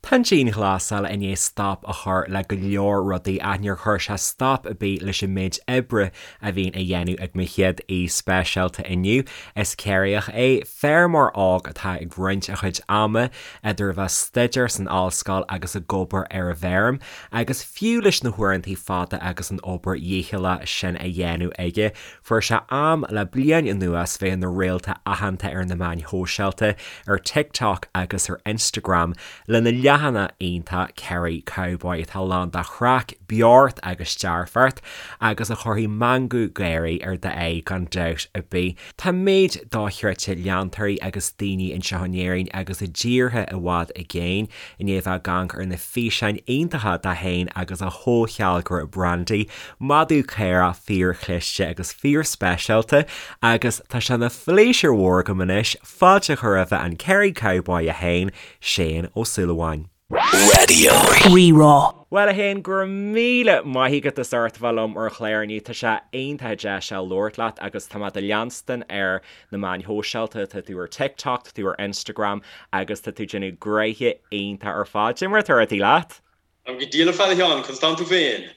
Tá an dianghlasáil i ndiaidh stop a chur le go leor rudaí ach níor chuir sé stop ar bith leis an méid oibre a bhíonn á dhéanamh ag mo chéad aoi speisialta inniu. Is Ciarraíoch é, feirmeoir óg atá ag roinnt a chuid ama idir a bheith ag staidéar san ollscoil agus ag obair ar an bhfeirm, agus fiú leis na huaireanta fada agus an obair dhícheallach sin á dhéanamh aige, Fuair sé am le bliain anuas bheith ina réalta aitheanta ar na meáin shóisialta, ar TikTok agus ar Instagram, lena leathanach iontach Kerry Cowboy atá lán de chraic, beocht agus dearfacht, agus a chuirfidh meangadh gáirí ar d'aghaidh gan dabht ar bith. Tá méid dochreidte leantóirí agus daoine anseo in Éirinn agus i dtíortha i bhfad i gcéin i ndiaidh a bheith ag amharc ar na físeáin iontacha de féin agus a chomhshealgaire Brandy, Madadh caorach fíorchliste agus fíorspeisialta agus tá sé ina phléisiúr mhór agam anois fáilte a chur roimhe an Kerry Cowboy é féin, Shane Ó Súilleabháin. Raidió Rí-Rá. Bhuel a Shéain, go raibh míle maith agat as ucht a bheith liom ar an chlár inniu. Tá sé iontach deas labhairt leat agus tá mé do leanstan ar na meáin shóisialta, tá tú ar TikTok, tá tú ar Instagram agus tá tú ag déanamh gnoithe iontach ar fad. Cad é mar atá rudaí leat? Táim go diail ar fad a Sheáin, conas tánn tú féin?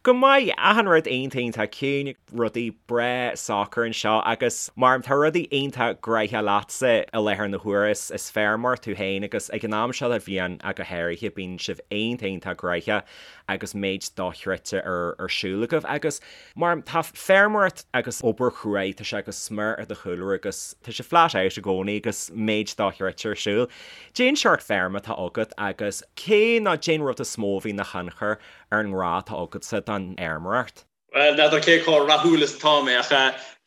Go maith, achan rud iontach iontach ciúin, rudaí breá socair anseo agus mar tá rudaí iontach gnoitheach leatsa i láthair na huaire, is feirmeoir tú féin agus ag an am seo de bhliain ach go háirithe bíonn sibh iontach iontach gnoitheach agus méid dochreidte ar ar siúl agaibh agus mar tá feirmeoireacht agus obair chruaidh tá sé go smior i do chúlra agus tá sé flat out i gcónaí agus méid dochreidte ar siúl. Cén seort feirme atá agat agus cé nó cén rud is mó a bhí ina thionchar ar an ngrá atá agatsa don fheirmeoireacht? Bhuel, n'fheadar cé chomh rathúil is atá mé, ach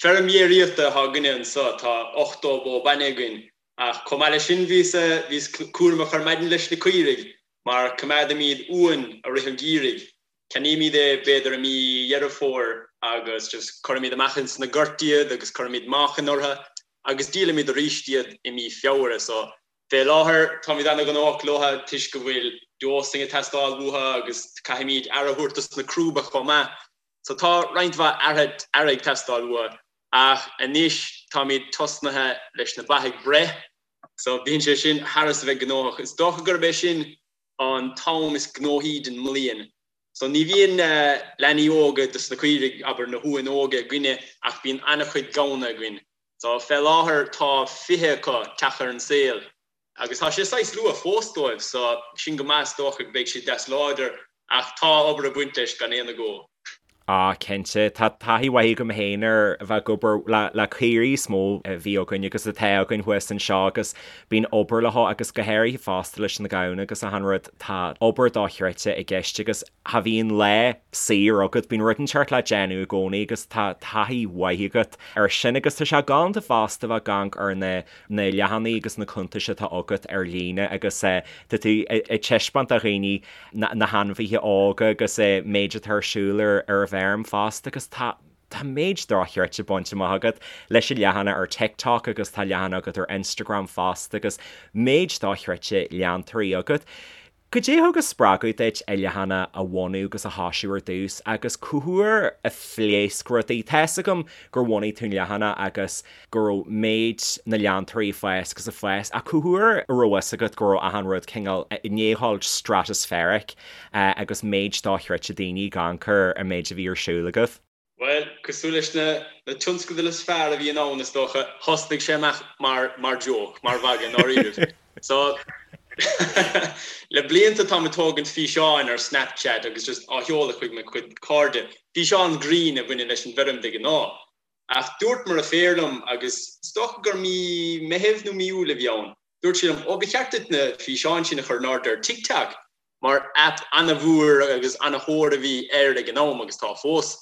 feirm dhéiríochta atá againne anseo, tá 80 bó bainne againn, ach chomh maith leis sin bhíos, bhíos cúramach ar maidin leis na caoirigh, mar coimeádaimid uan i rith an gheimhridh. Ceannaímid é b'fhéidir i mí Dheireadh Fómhair agus just cuirimid amach ins na goirt iad agus cuirimid meáchan orthu agus díolaimid arís iad i mí Feabhra. So fé láthair táimid ana-ghnóthach leo toisc go bhfuil dosing ag teastáil uathu agus caithfimid aire a thabhairt dos na crúba chomh maith. So tá roinnt mhaith aire aire ag teastáil uathu ach anois táimid tosnaithe leis na ba ag breith so bíonn sé sin thar is a bheith gnóthach. Is dócha gurb é sin an t-am is gnóthaí den mbliain. So ní bhíonn leanaí óga dos na caoirigh, abair na huain óga againne ach bíonn an-chuid gamhna againn. So fé láthair tá 20 acu teacht ar an saol agus tá sé saghas luath fós dóibh so sin go maith is dócha go beidh siad deas láidir ach tá obair ag baint leis gan aon agó. Á, cinnte. Tá taithí mhaith agam féin ar a bheith ag obair le caoirigh is mó a bhí againn agus atá againn thuas anseo agus bíonn obair leo agus go háirithe fosta leis na gamhna agus achan rud, tá obair dochreidte i gceist agus cha bhíonn lá saor agat, bíonn rud inteacht le déanamh i gcónaí agus tá taithí mhaith agat ar sin agus tá sé galánta fosta bheith ag amharc ar na na leathanaigh agus na cuntais atá agat ar líne agus tá tú ag taispeáint do dhaoine na hainmhithe óga agus an méid atá ar siúl ar an bhfeirm fosta agus tá tá méid dochreidte bainte amach agat leis an leathanach ar TikTok agus tá leathanach agat ar Instagram fosta agus méid dochreidte leantóirí agat. Cad é a thug an spreagadh duit an leathanach a bhunú agus a thoisiú ar dtús agus cá huair a phléasc rudaí? Tá fhios agam gur bhunaigh tú an leathanach agus go raibh méid na leantóirí ag fás agus ag fás ach cá huair a raibh fhios agat go raibh achan rud cineál i ndiaidh dhul stratospheric agus méid dochreidte daoine ag amharc ar an méid a bhí ar siúl agaibh? Bhuel, cosúil leis na na tionscadail is fearr a bhíonn ann, is dócha, thosnaigh sé amach mar mar joke, mar mhagadh, i ndáiríribh. So, le blianta táim ag tógaint físeáin ar Snapchat agus just á sheoladh chuig mo chuid cairde, físeáin grinn a bhaineann leis an bhfeirm de ghnáth. Ach dúirt mo dheirfiúr liom, agus is dócha gur mí Meithimh nó mí Iúil a bhí ann, dúirt sí liom, 'Ó, ba cheart duit na físeáin sin a chur in airde ar TikTok. mar aip ana-mhór agus ana-thóir a bhí air ag an am agus tá fós.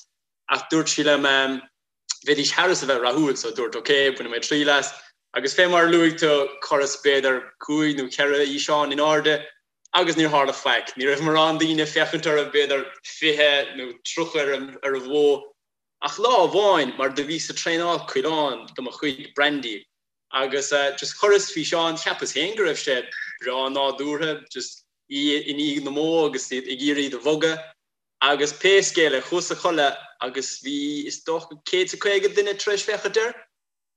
Ach dúirt sí liom bheidís thar is a bheith rathúil so dúirt ok, bainfidh mé triail as. Agus fé mar a luaigh tú, chuireas b'fhéidir cúig nó cheithre fhíseán in airde agus níor tharla faic. Ní raibh mórán daoine ag féachaint orthu, b'fhéidir 20 nó 30 ar ar a mhó. Ach lá amháin, mar do bhíos ag traenáil coileán do mo chuid Brandy Agus just chuireas físeán, cheapas féin go raibh sé breá nádúrtha, just í i ndiaidh na mbó agus iad ag iarraidh iad a bhogadh. Agus pé scéal é, chuas a chodladh agus bhí is dócha 150 duine tar éis féachaint air.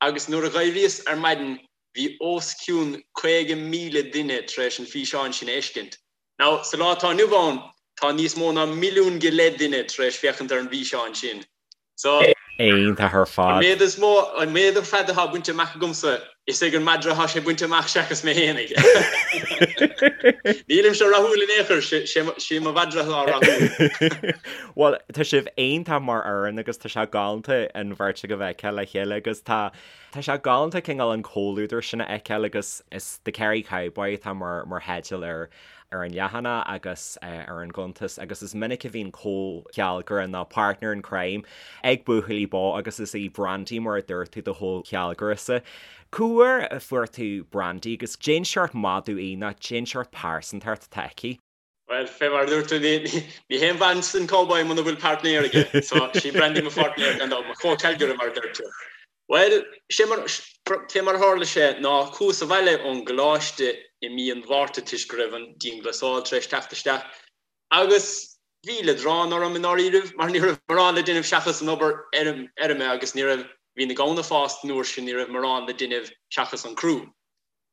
Agus nuair a dh'éiríos ar maidin. Bhí os cionn 50,000 duine tar éis an físeán sin a fheiscint. Now, sa lá atá inniu ann, tá níos mó ná milliún go leith duine tar éis féachaint ar an bhfíseán sin. So. Iontach ar fad. An méid is mó, an méid ar fad atá bainte amach agamsa, is ag an madra atá sé bainte amach seachas mé fhéinig. Nílimse rathúil in aon chor, sé mo mhadra atá rathúil. Bhuel, tá sibh iontach mar fhoireann agus tá sé galánta an bheirt agaibh a fheiceáil le chéile agus tá tá sé galánta cineál an comhluadar sin a fheiceáil agus is The Kerry Cowboy atá mar mar theideal ar ar an leathanach agus ar an gcuntas agus is minic a bhíonn comhchealgaire nó partner in crime ag buachaillí bó agus is í Brandy mar a dúirt tú do chomhchealgaire-sa. Cá huair a fuair tú Brandy agus cén seort madadh í nó cén seort pearsantacht atá aici? Bhuel, fé mar a dúirt tú, ní haon mhaitheas an cowboy muna bhfuil páirtnéir aige. So, sí Brandy mo pháirtnéir gan dabht, mo chomhchealgaire mar a deir tú. Bhuel, sé mar, fé mar a tharla sé ná chuas abhaile ón gcoláiste i mí an Mhárta toisc go raibh an dianghlasáil tar éis teacht isteach agus bhí leadrán orm i ndáiríribh mar ní raibh morán le déanamh seachas an obair fheirme agus ní raibh, bhí na gamhna fásta an uair sin, ní raibh morán le déanamh seachas an crú.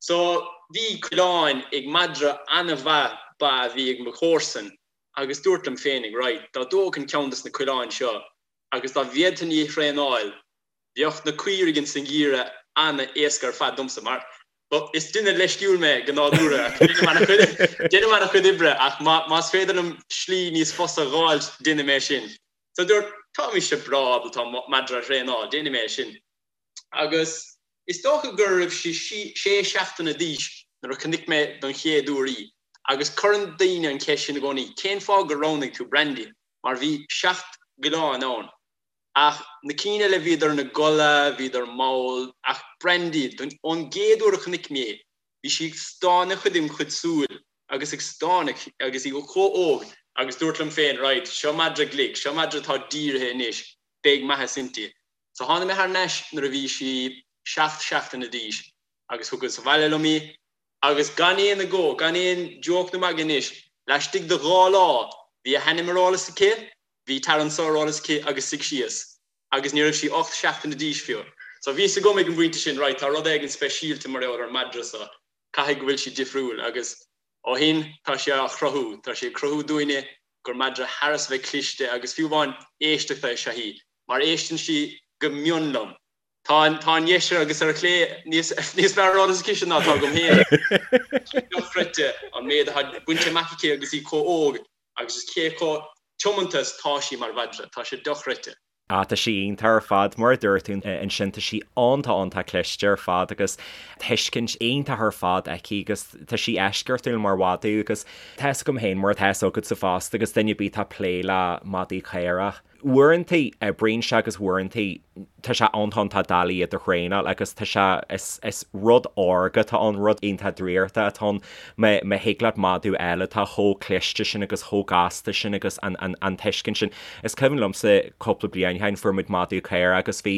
So, bhí coileáin ag madra an-mhaith ba a bhí ag mo chomharsan agus dúrt liom féinig, right, dá dtógfainn ceann des na coileáin seo agus dá bhféadfainn í a thraenáil, Bheadh na caoirigh ins an gheimhreadh ana-éasca ar fad domsa, mar is duine leisciúil mé go nádúrtha ach déanaim ana-chuid oibre ach más féidir liom slí níos fusa a dh'fháilt, déanfaidh mé sin. So dúrt, tá mise breá ábalta madra a thraenáil, déanfaidh mé é sin. Agus is dócha go raibh sí sé seachtaine d'aois nuair a chonaic mé don chéad uair í. Agus cuireann daoine an cheist sin i gcónaí, cén fáth gur roghnaigh tú Brandy? Mar bhí seacht gcoileán ann. Ach na cinn eile bhíodar ina gcodladh, bhíodar mall, ach Brandy, ón gcéad uair a chonaic mé í, bhí sí ag stánadh chuig im chuid súil agus ag stánadh agus í chomh óg agus dúrt liom féin, right, seo madra glic, seo madra atá dírithe anois, beidh maitheas inti. So tháinig mé thar n-ais nuair a bhí sí seacht seachtaine d'aois agus thugas abhaile liom í agus gan aon agó, gan aon joke nó magadh anois, laistigh de dhá lá bhí a hainm ar eolas aici, Bhí tar anso ar eolas aici agus suigh síos agus ní raibh sí 8 seachtaine d'aois fiú. So bhí fhios agam ag an bpointe sin, right, tá rud éigin speisialta mar gheall ar an madra so, caithfidh go bhfuil sí difriúil agus ó shin tá sí á chruthú, tá sí ag cruthú dúinne gur madra thar a bheith cliste agus fiú amháin éisteachta is ea í, mar éisteann sí go mion liom. Tá an, tá ar dheis agus ar chlé níos, níos fearr ar eolas aici ná atá agam féin. Dochreidte an méid atá bainte amach aici agus í chomh óg agus is cé chomh tiomanta is tá sí mar mhadra, tá sé dochreidte. Ah, tá sí iontach ar fad, mar a dúirt tú ansin, tá sí iontach iontach cliste ar fad agus tuiscint iontach ar fad aici agus tá sí eisceachtúil mar mhadadh agus tá fhios agam féin mar atá fhios agatsa fosta agus duine ar bith atá ag plé le madaí caorach. Uaireanta oibríonn sé agus uaireanta tá sé iontach iontach doiligh iad a thraenáil agus tá sé, is, is rud órga atá ann, rud iontach draíochta atá ann. Má, má thig leat madadh a fháil atá chomh cliste sin agus chomh gasta sin agus an, an, an tuiscint sin. Is cuimhin liomsa cúpla bliain ó shin fuair muid madadh caorach agus bhí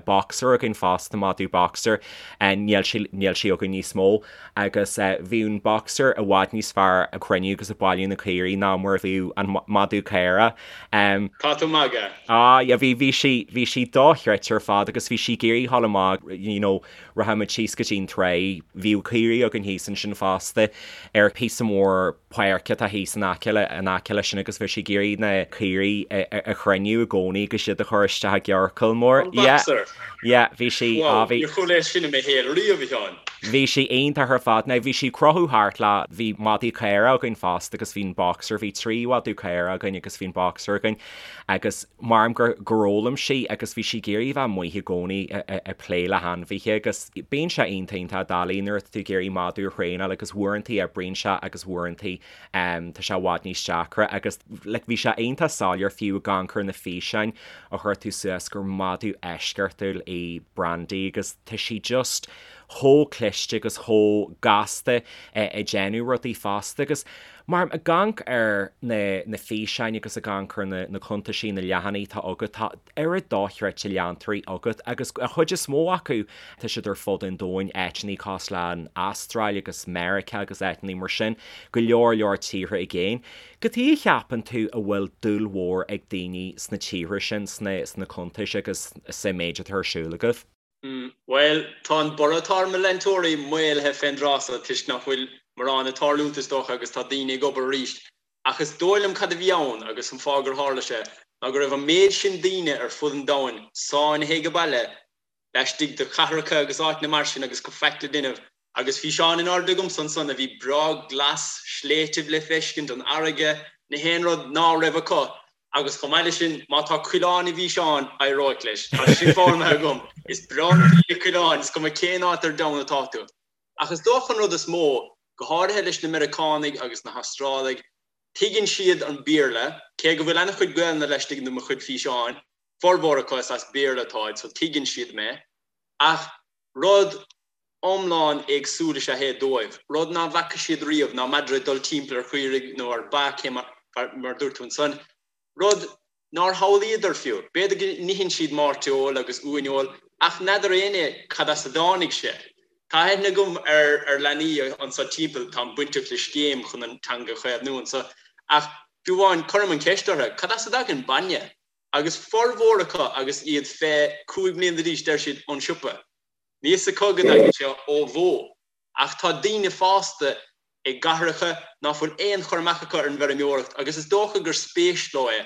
boxer againn fosta, madadh boxer, níl sé, níl sé againn níos mó. Agus bhí an boxer i bhfad níos fearr ag cruinniú agus ag bailiú na caoirigh ná mar a bhíodh an madadh caorach. Tá tú ag magadh. Ah yeah, bhí, bhí sí, bhí sí dochreidte ar fad agus bhí sí ag iarraidh dhul amach, you know, rachadh muid síos go dtí an trá, bhíodh caoirigh againn thíos ansin fosta ar phíosa mór páirce atá thíos in aice le, in aice leis sin agus bhí sí ag iarraidh na caoirigh a chruinniú i gcónaí agus iad a chur isteach i gciorcal mór. An boxer? Yeah, bhí sí, Wow, ah bhí. Níor chuala é sin i mo shaol riamh, a Sheáin. Bhí sí iontach ar fad. Now bhí sí ag crochadh thart le, bhí madaí caora againn fosta agus bhí an boxer, bhí trí mhadadh caora againn agus bhí an boxer againn agus maram gur, gur fhoghlaim sí agus bhí sí ag iarraidh a bheith amuigh i gcónaí ag plé le hainmhithe agus bíonn sé iontach iontach doiligh nuair atá tú ag iarraidh madadh a thraenáil agus uaireantaí oibríonn sé agus uaireantaí tá sé i bhfad níos deacra agus like bhí sé iontach soiléir fiú ag amharc ar na físeáin a chuir tú suas gur madadh eisceachtúil í Brandy agus tá sí just chomh cliste agus chomh gasta ag déanamh rudaí fosta agus mar ag amharc ar na na físeáin agus ag amharc ar na na cuntaisí, na leathanaigh atá agat, tá oiread dochreidte leantóirí agat agus an chuid is mó acu tá siad ar fud an domhain, áiteanna cosúil le an Astráil agus Meiriceá agus áiteanna mar sin, go leor leor tíortha i gcéin. Cad chuige a cheapann tú a bhfuil dúil mhór ag daoine sna tíortha sin, sna sna cuntais agus sa méid atá ar siúl agaibh? Bhuel, tá an borradh atá ar mo leantóirí maolaithe fén dtráth so toisc nach bhfuil morán ag tarlúint is dócha agus tá daoine ag obair arís. Ach is dóigh liom cad a bhí ann agus an fáth gur tharla sé ná go raibh an méid sin daoine ar fud an domhain sáinnithe age baile laistigh de chathracha agus áiteanna mar sin agus faic le déanamh Agus físeán in airde agamsa ansan a bhí breá glas, sléibhtibh le feiscint, an fharraige, na haon rud ná raibh acu. Agus chomh maith leis sin, má tá coileán i bhfíseán, éireoidh leis. Tá sin foghlamtha agam. Is breá le daoine coileáin, is cuma cén áit ar domhan atá tú. Ach is dócha an rud is mó, go háirithe leis na Meiriceánaigh agus na hAstrálaigh, tuigeann siad an Béarla, cé go bhfuil an-chuid Gaelainne laistigh de mo chuid físeáin, formhór acu is as Béarla atáid, so tuigeann siad mé. Ach rud iomlán éagsúil is ea é dóibh, rud ná bhfaca siad riamh, ná madra ag dul timpeall ar chaoirigh nó ar ba, cé mar a dúirt tú ansan, rud nár shamhlaíodar fiú. B'fhéidir go n-itheann siad mairteoil agus uaineoil ach n'fheadar éinne cad as a dtáinig sé. Tá aithne agam ar leanaí anso timpeall, táim bainteach le scéim chun an teanga a chaomhnú anso, ach fiú amháin cuirim an cheist orthu, cad as a dtagann bainne? Agus formhór acu agus iad fé 5 mbliana d'aois deir siad ón siopa. Níl fhios acu go dtagann sé ó bhó. Ach tá daoine fásta i gcathracha ná fuil aon chur amach acu ar an bhfeirmeoireacht agus is dócha gur spéis leo é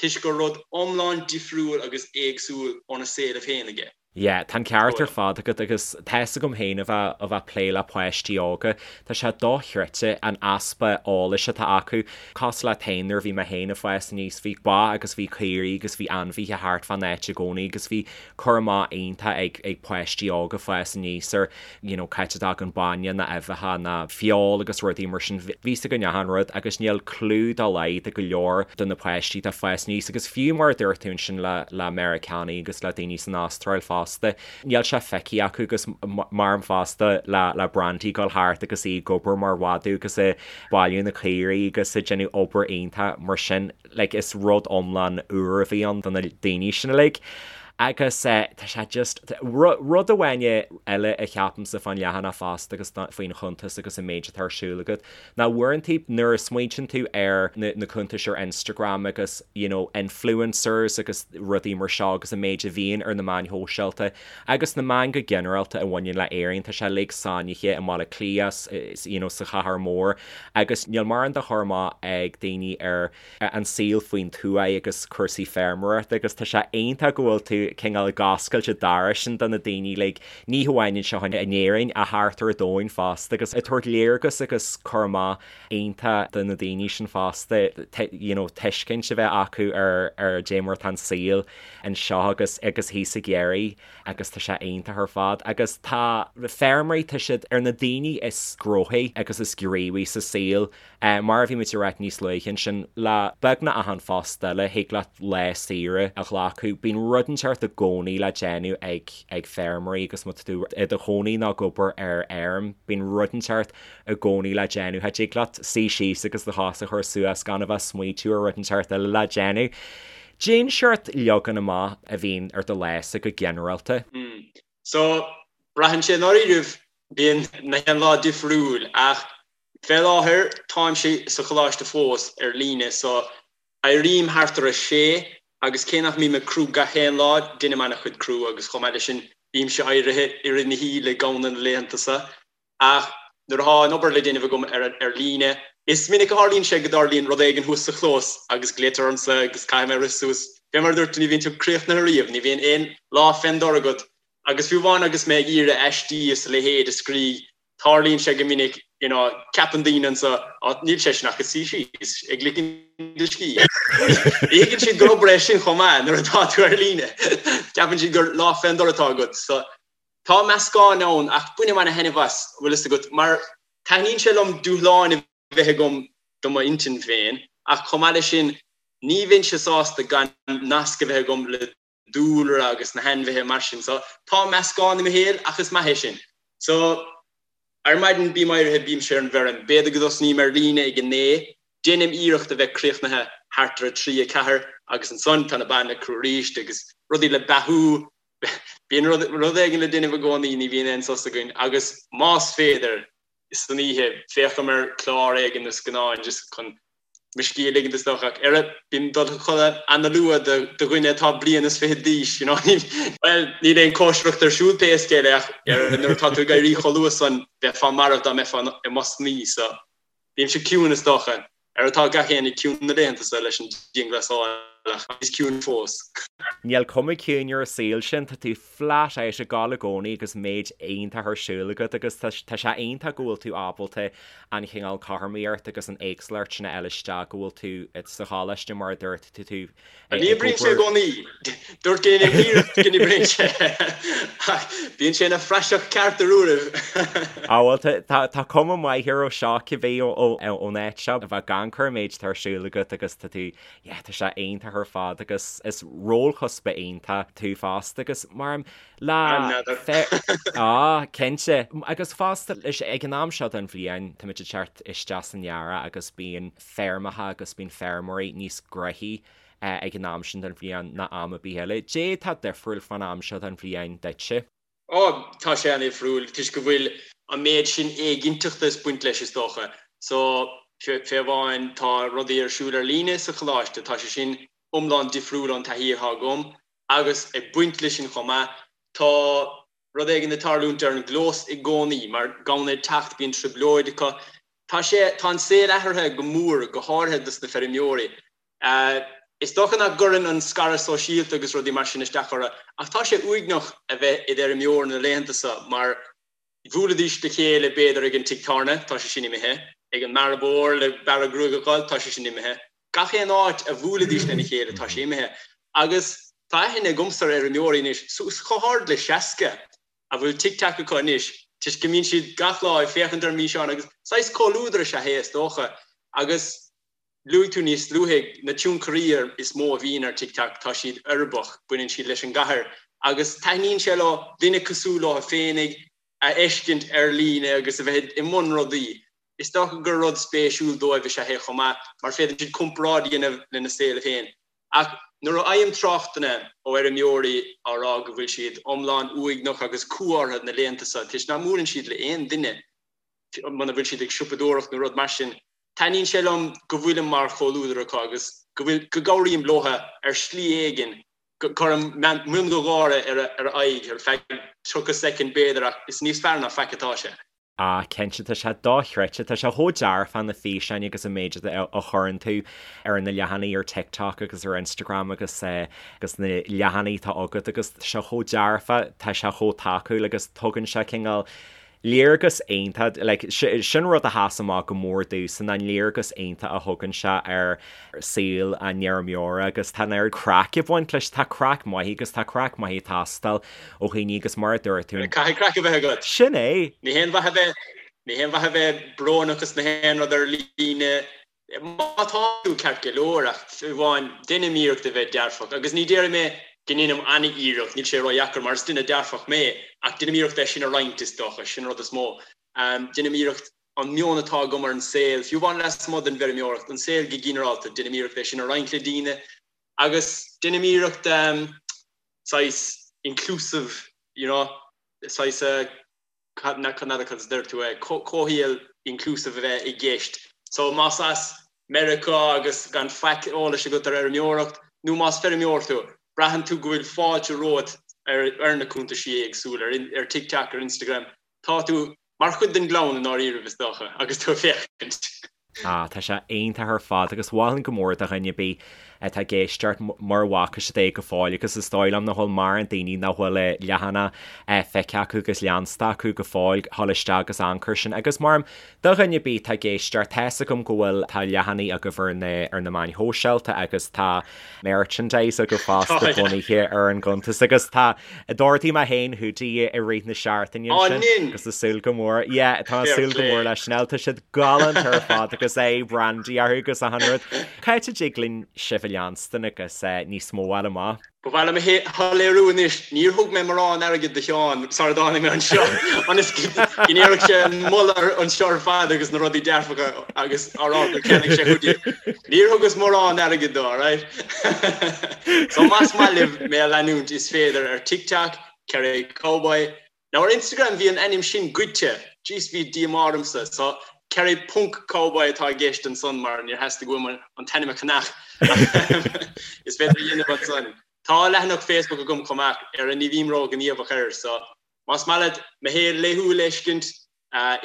toisc gur rud iomlán difriúil agus éagsúil óna saolaibh féinig é. Yeah, tá an ceart ar fad agat agus tá fhios agam féin a bheith a bheith ag plé le páistí óga, tá sé dochreidte an easpa eolais atá acu. Cosúil leat féin nuair a bhí mé féin ag fás aníos bhí ba agus bhí caoirigh agus bhí ainmhithe thart fán áit i gcónaí agus bhí cur amach iontach ag ag páistí óga fás aníos ar you know c'áit a dtagann bainne ná uibheacha ná feoil agus rudaí mar sin. Bhí fhios againn achan rud agus níl clue dá laghad ag go leor de na páistí atá ag fás aníos agus fiú mar a dúirt tú ansin le le Meiriceánaigh agus le daoine san Astráil fosta níl sé feicthe acu agus maram fosta le le Brandy ag dul thart agus í ag obair mar mhadadh agus ag bailiú na caoirigh agus ag déanamh obair iontach mar sin. like is rud iomlán úr a bhí ann do na daoine sin uilig. Agus tá sé just, rud amháin eile a cheapaimse fán leathanach fosta agus faoin chuntas agus an méid atá ar siúl agat, ná uaireanta nuair a smaointíonn tú ar na cuntais ar Instagram agus you know influencers agus rudaí mar seo agus an méid a bhíonn ar na meáin shóisialta agus na meáin go ginearálta a bhaineann le Éirinn, tá sé uilig sáinnithe i mBaile Átha Cliath, you know sa chathair mhór agus níl mórán de chur amach ag daoine ar an saol faoin tuaith agus cúrsaí feirmeoireachta agus tá sé iontach go bhfuil tú cineál ag oscailt an doras sin do na daoine like ní hamháin anseo in Éirinn ach thart ar an domhan fosta agus ag tabhairt léargas agus cur amach iontach do na daoine sin fosta you know tuiscint a bheith acu ar ar dé mar atá an saol anseo agus agus thíos ag iarraidh agus tá sé iontach ar fad agus tá feirmeoirí, tá siad ar na daoine is gnóthaí agus is gníomhaí sa saol. Mar a bhí muid ag ráit níos luaithe ansin, le beagnach achan phost eile, thig leat lá saoire a ghlacadh. Bíonn rud inteacht i gcónaí le déanamh ag ag feirmeoirí agus má tá tú i do chónaí nó ag obair ar fheirm, bíonn rud inteacht i gcónaí le déanamh. Cha dtig leat suí síos agus do chos a chur suas gan a bheith ag smaoitiú ar rud inteacht eile le déanamh. Cén seort leagan amach a bhíonn ar do lása go ginearálta? So, braitheann sé i ndáiríribh, bíonn na haon lá difriúil ach fé láthair táimse sa choláiste fós ar líne so éirím thart ar a sé agus cé nach mbím ag crú gach aon lá, deinim an-chuid crú agus chomh maith leis sin bímse éirithe i rith na hoíche le gamhna na laethanta so. Ach nuair atá an obair le déanamh agam ar líne, is minic a tharlaíonn sé go dtarlaíonn rud éigin thuas sa chlós agus glaoitear ormsa agus caithfidh mé rith suas. Fé mar a dúirt tú, ní bhíonn tú críochnaithe riamh, ní bhíonn aon lá fén dtor agat. Agus fiú amháin agus mé ag iarraidh aistí is a leithéid a scríobh, tarlaíonn sé go minic, you know, ceapann daoine anso, á, níl seisean ach ag suí síos, ag ligean a scíth. Ní thuigeann siad gur obair é sin chomh maith nuair atá tú ar líne. Ceapann siad gur lá fén dtor atá agat. So, Tá meascán ann ach bainim ana-thaitneamh as, bhfuil fhios agat, mar taitníonn sé liom dúshláin a bheith agam do m'intinn féin ach chomh maith leis sin ní bheinnse sásta gan nasc a bheith agam le dúlra agus na hainmhithe mar sin. So tá meascán i mo shaol ach is maith é sin. So ar maidin bím éirithe, bímse ar an bhfeirm, b'fhéidir go dtosnaím ar líne ag a naoi, déanaim iarracht a bheith críochnaithe thart ar a trí, a ceathair agus ansan tá na ba le crú arís agus rudaí le beathú, Bíonn rud éigin le déanamh i gcónaí, ní bhíonn aon sos againn agus más féidir, san oíche, féachaim ar chlár éigin nó scannán just chun. mo scíth a ligint is dócha ach oiread, bím ag dul a chodladh ana-luath do dhuine atá bliain is fichead d'aois, you know. Bhuel, níl aon cóisireacht ar siúl pé scéal é ach nuair atá tú ag éirí chomh luath san, bheifeá marbh dá mbeifeá i mo shuí, so bímse ciúin is dócha. Ar atá gach éinne ciúin na laethanta seo leis an dianghlasáil ach níos ciúine fós. Níl cuma ciúin ar an saol sin, tá tú flat out ag gabháil i gcónaí agus méid iontach ar siúl agat agus tá sé iontach go bhfuil tú ábalta an chineál cothromaíocht agus an éagsúlacht sin a fháil isteach go bhfuil tú sa choláiste mar a dúirt tú tú Ní oibríonn sé i gcónaí. Dúirt go ndéanaim iarracht go n-oibríonn sé. Ach bíonn sé ina phraiseach ceart ar uairibh. Á bhuel, tá cuma maith air ó seo cibé ón áit seo. A bheith ag amharc ar an méid atá ar siúl agat agus tá tú, yeah, tá sé iontach ar fad agus is rólchuspa iontach tú fosta agus mar le Á, cinnte. Agus fosta, ag an am seo den bhliain, táimid ag teacht isteach san earrach agus bíonn feirmeacha agus bíonn feirmeoirí níos gnoithí ag an am sin den bhliain ná am ar bith eile. Dé atá difriúil fán am seo den bhliain duitse? Ó, tá sé an-difriúil toisc go bhfuil an méid sin éiginnteachta ag baint leis is dócha. So, fé amháin tá rudaí ar siúl ar líne sa choláiste, tá sé sin iomlán difriúil ón taithí atá agam agus ag baint leis sin chomh maith, tá rud éigin ag tarlúint ar an gclós i gcónaí, mar gamhna ag teacht, bíonn trioblóid acu. Tá sé, tá an saol athraithe go mór, go háirithe dos na feirmeoirí. Is dócha nach gcuireann an scaradh sóisialta agus rudaí mar sin isteach orthu, ach tá sé uaigneach a bheith id fheirmeoir na laethanta seo mar bhuailidís le chéile b'fhéidir ag an tigh tábhairne, tá sé sin imithe, ag an mbearbóir le bearradh gruaige a dh'fháil, tá sé sin imithe. Gach aon áit a bhuailidís lena chéile, tá sé imithe. Agus tá aithne agamsa ar fheirmeoirí anois, suas chomh hard le 60, a bhfuil TikTok acu anois, toisc go mbíonn siad gach lá ag féachaint ar an bhfíseán agus saghas comhluadar is ea é, is dócha. Agus luaigh tú níos luaithe, na tionchairí is mó a bhíonn ar TikTok, tá siad uirbeach, baineann siad leis an gcathair agus taitníonn sé leo duine cosúil leo féinig a fheiscint ar líne agus a bheith i mbun rudaí. Is dócha gur rud spéisiúil dóibh is ea é chomh maith, mar féadann siad comparáid a dhéanamh lena saol féin. Ach nuair a fhaighim tráchtanna ó fheirmeoirí á rá go bhfuil siad iomlán uaigneach agus cumha orthu na laethanta seo toisc nach mbuaileann siad le aon duine muna bhfuil siad ag siopadóireacht nó rud mar sin, taitníonn sé liom go bhfuilim mar chomhluadar acu agus go bhfuil, go gcabhraím leo ar shlí éigin, go gcuirim mion de gháire ar a aghaidh ar feadh 30 soicind b'fhéidir ach is níos fearr ná faic atá sé. Ah, cinnte, tá sé dochreidte. Tá sé chomh dearfach na físeáin agus an méid a chuireann tú ar na leathanaigh ar TikTok agus ar Instagram agus agus na leathanaigh atá agat agus tá sé chomh dearfach, tá sé chomh tacúil agus tugann sé cineál léargas iontach, like, sin rud a sheas amach go mór domhsa ná an léargas iontach a thugann sé ar saol an fheirmeora agus tá an oiread craic ag baint leis, tá craic maith agus tá craic maith ag teastáil ó dhaoine agus mar a dúirt tú. Caithfidh craic a bheith agat. Sin é! Ní haon mhaith a bheith, ní haon mhaith a bheith brónach is na haon rud ar líne. Má tá tú ceart go leor ach fiú amháin deinim iarracht a bheith dearfach agus ní déarfaidh mé go ndeinim an-iarracht, níl sé ródheacair mar is duine dearfach mé ach deinim iarracht é sin a roinnt is dócha, sin an rud is mó. Deinim iarracht an meon atá agam ar an saol, fiú amháin lasmuigh den bhfeirmeoireacht, an saol go ginearálta, deinim iarracht é sin a roinnt le daoine agus deinim iarracht saghas inclusive, you know, saghas, n'fheadar cad a deir tú é, comhshaol inclusive a bheith i gceist. So más as Meiriceá agus gan faic eolais agat ar fheirmeoireacht, nó más feirmeoir tú, braitheann tú go bhfuil fáilte romhat ar na cuntaisí éagsúla, ar TikTok, ar Instagram, tá tú mar chuid den gclann i ndáiríribh, is dócha, agus tú ag féachaint. Ah, tá sé iontach ar fad agus mholfainn go mór do dhuine ar bith atá ag éisteacht mura bhfaca siad é go fóill agus is dóigh liom nach bhfuil mórán daoine nach bhfuil a leathanach feicthe acu agus leansta acu go fóill dhul isteach agus amharc air sin agus mar do dhuine ar bith atá ag éisteacht tá's agam go bhfuil tá leathanaigh agaibh ar na ar na meáin shóisialta agus tá merchandise agaibh fosta bunaithe ar an gcuntas agus tá D'ordaigh mé féin hoodie i rith na seachtaine ansin agus ag súil go mór yeah tá ag súil go mór leis sin tá siad galánta ar fad agus é brandy orthu agus achan rud. Cá háit a dtig linn sibh a leanstan agus níos mó a fháil amach? Ba mhaith liom a shoiléiriú anois, níor thug mé morán airgid do Sheán sara dtáinig mé anseo, ionas go ndéarfadh sé an moladh anseo ar fad agus na rudaí dearfacha agus á rá gur cheannaigh sé hoodie. Níor thugas mórán airgid dó, alright? So más maith libh mé a leanúint is féidir ar TikTok, Kerry Cowboy. Now ar Instagram bhí an ainm sin goidte, jeez bhí díomá ormsa, so. Kerry ponc Cowboy atá i gceist ansan mar níor theastaigh uaim an t-ainm a cheannach. Is féidir a dhéanamh ansan. Tá leathanach Facebook agam chomh maith ar a ní bhím ró-ghníomhach air so más maith leat mo shaol laethúil a fheiscint,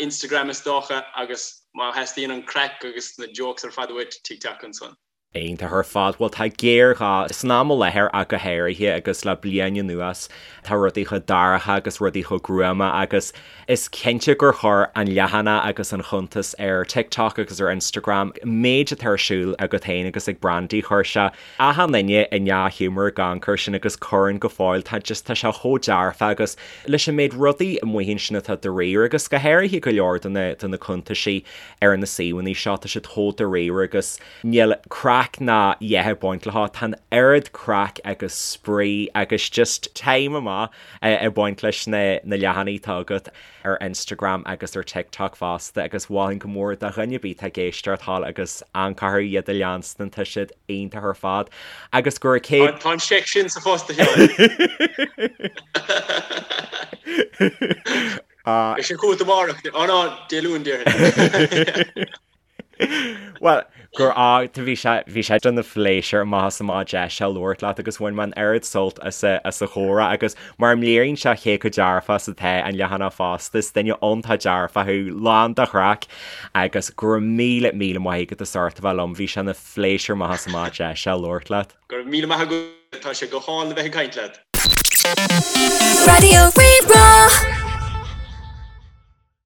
Instagram is dócha agus má theastaíonn an craic agus na jokes ar fad uait, TikTok ansan. Iontach ar fad. Bhuel tá géarghá san am i láthair ach go háirithe agus le bliain anuas tá rudaí chomh dorcha agus rudaí chomh gruama agus is cinnte gur chuir an leathanach agus an chuntas ar TikTok agus ar Instagram méid atá ar siúl agat féin agus ag Brandy chuir sé achan duine i ndea-ghiúmar ag amharc air sin agus cuireann go fóill tá just tá sé chomh dearfa agus leis an méid rudaí amuigh ansin atá dáiríre agus go háirithe go leor de na de na cuntaisí ar na suíomhanna seo tá siad chomh dáiríre agus Níl craic ná a dhath ag baint leo, tá an oiread craic agus spraoi agus just time amach ag baint leis na leathanaigh atá agat ar Instagram agus ar TikTok fosta agus mholfainn go mór do dhuine ar bith atá ag éisteacht thall agus amharc orthu iad a leanstan, tá siad iontach ar fad agus go raibh céad. Tá an seic sin sa phost a Sheáin. Beidh sé chugat amárach, ó no, Dé Luain déarfainn. Bhuel, gur fhág tú, bhí sé, bhí sé ina phléisiúr amach is amach deis a labhairt leat agus bhain mé an oiread sult as a, as a chomhrá agus mar a léiríonn sé cé chomh dearfach is atá an leathanach fosta, is duine iontach dearfach thú, lán de chraic agus go raibh míle, míle maith agat as ucht a bheith liom, bhí sé ina phléisiúr amach is amach deis a labhairt leat. Go raibh míle maith agat, tá sé go hálainn a bheith ag caint leat. Raidió Rí-Rá.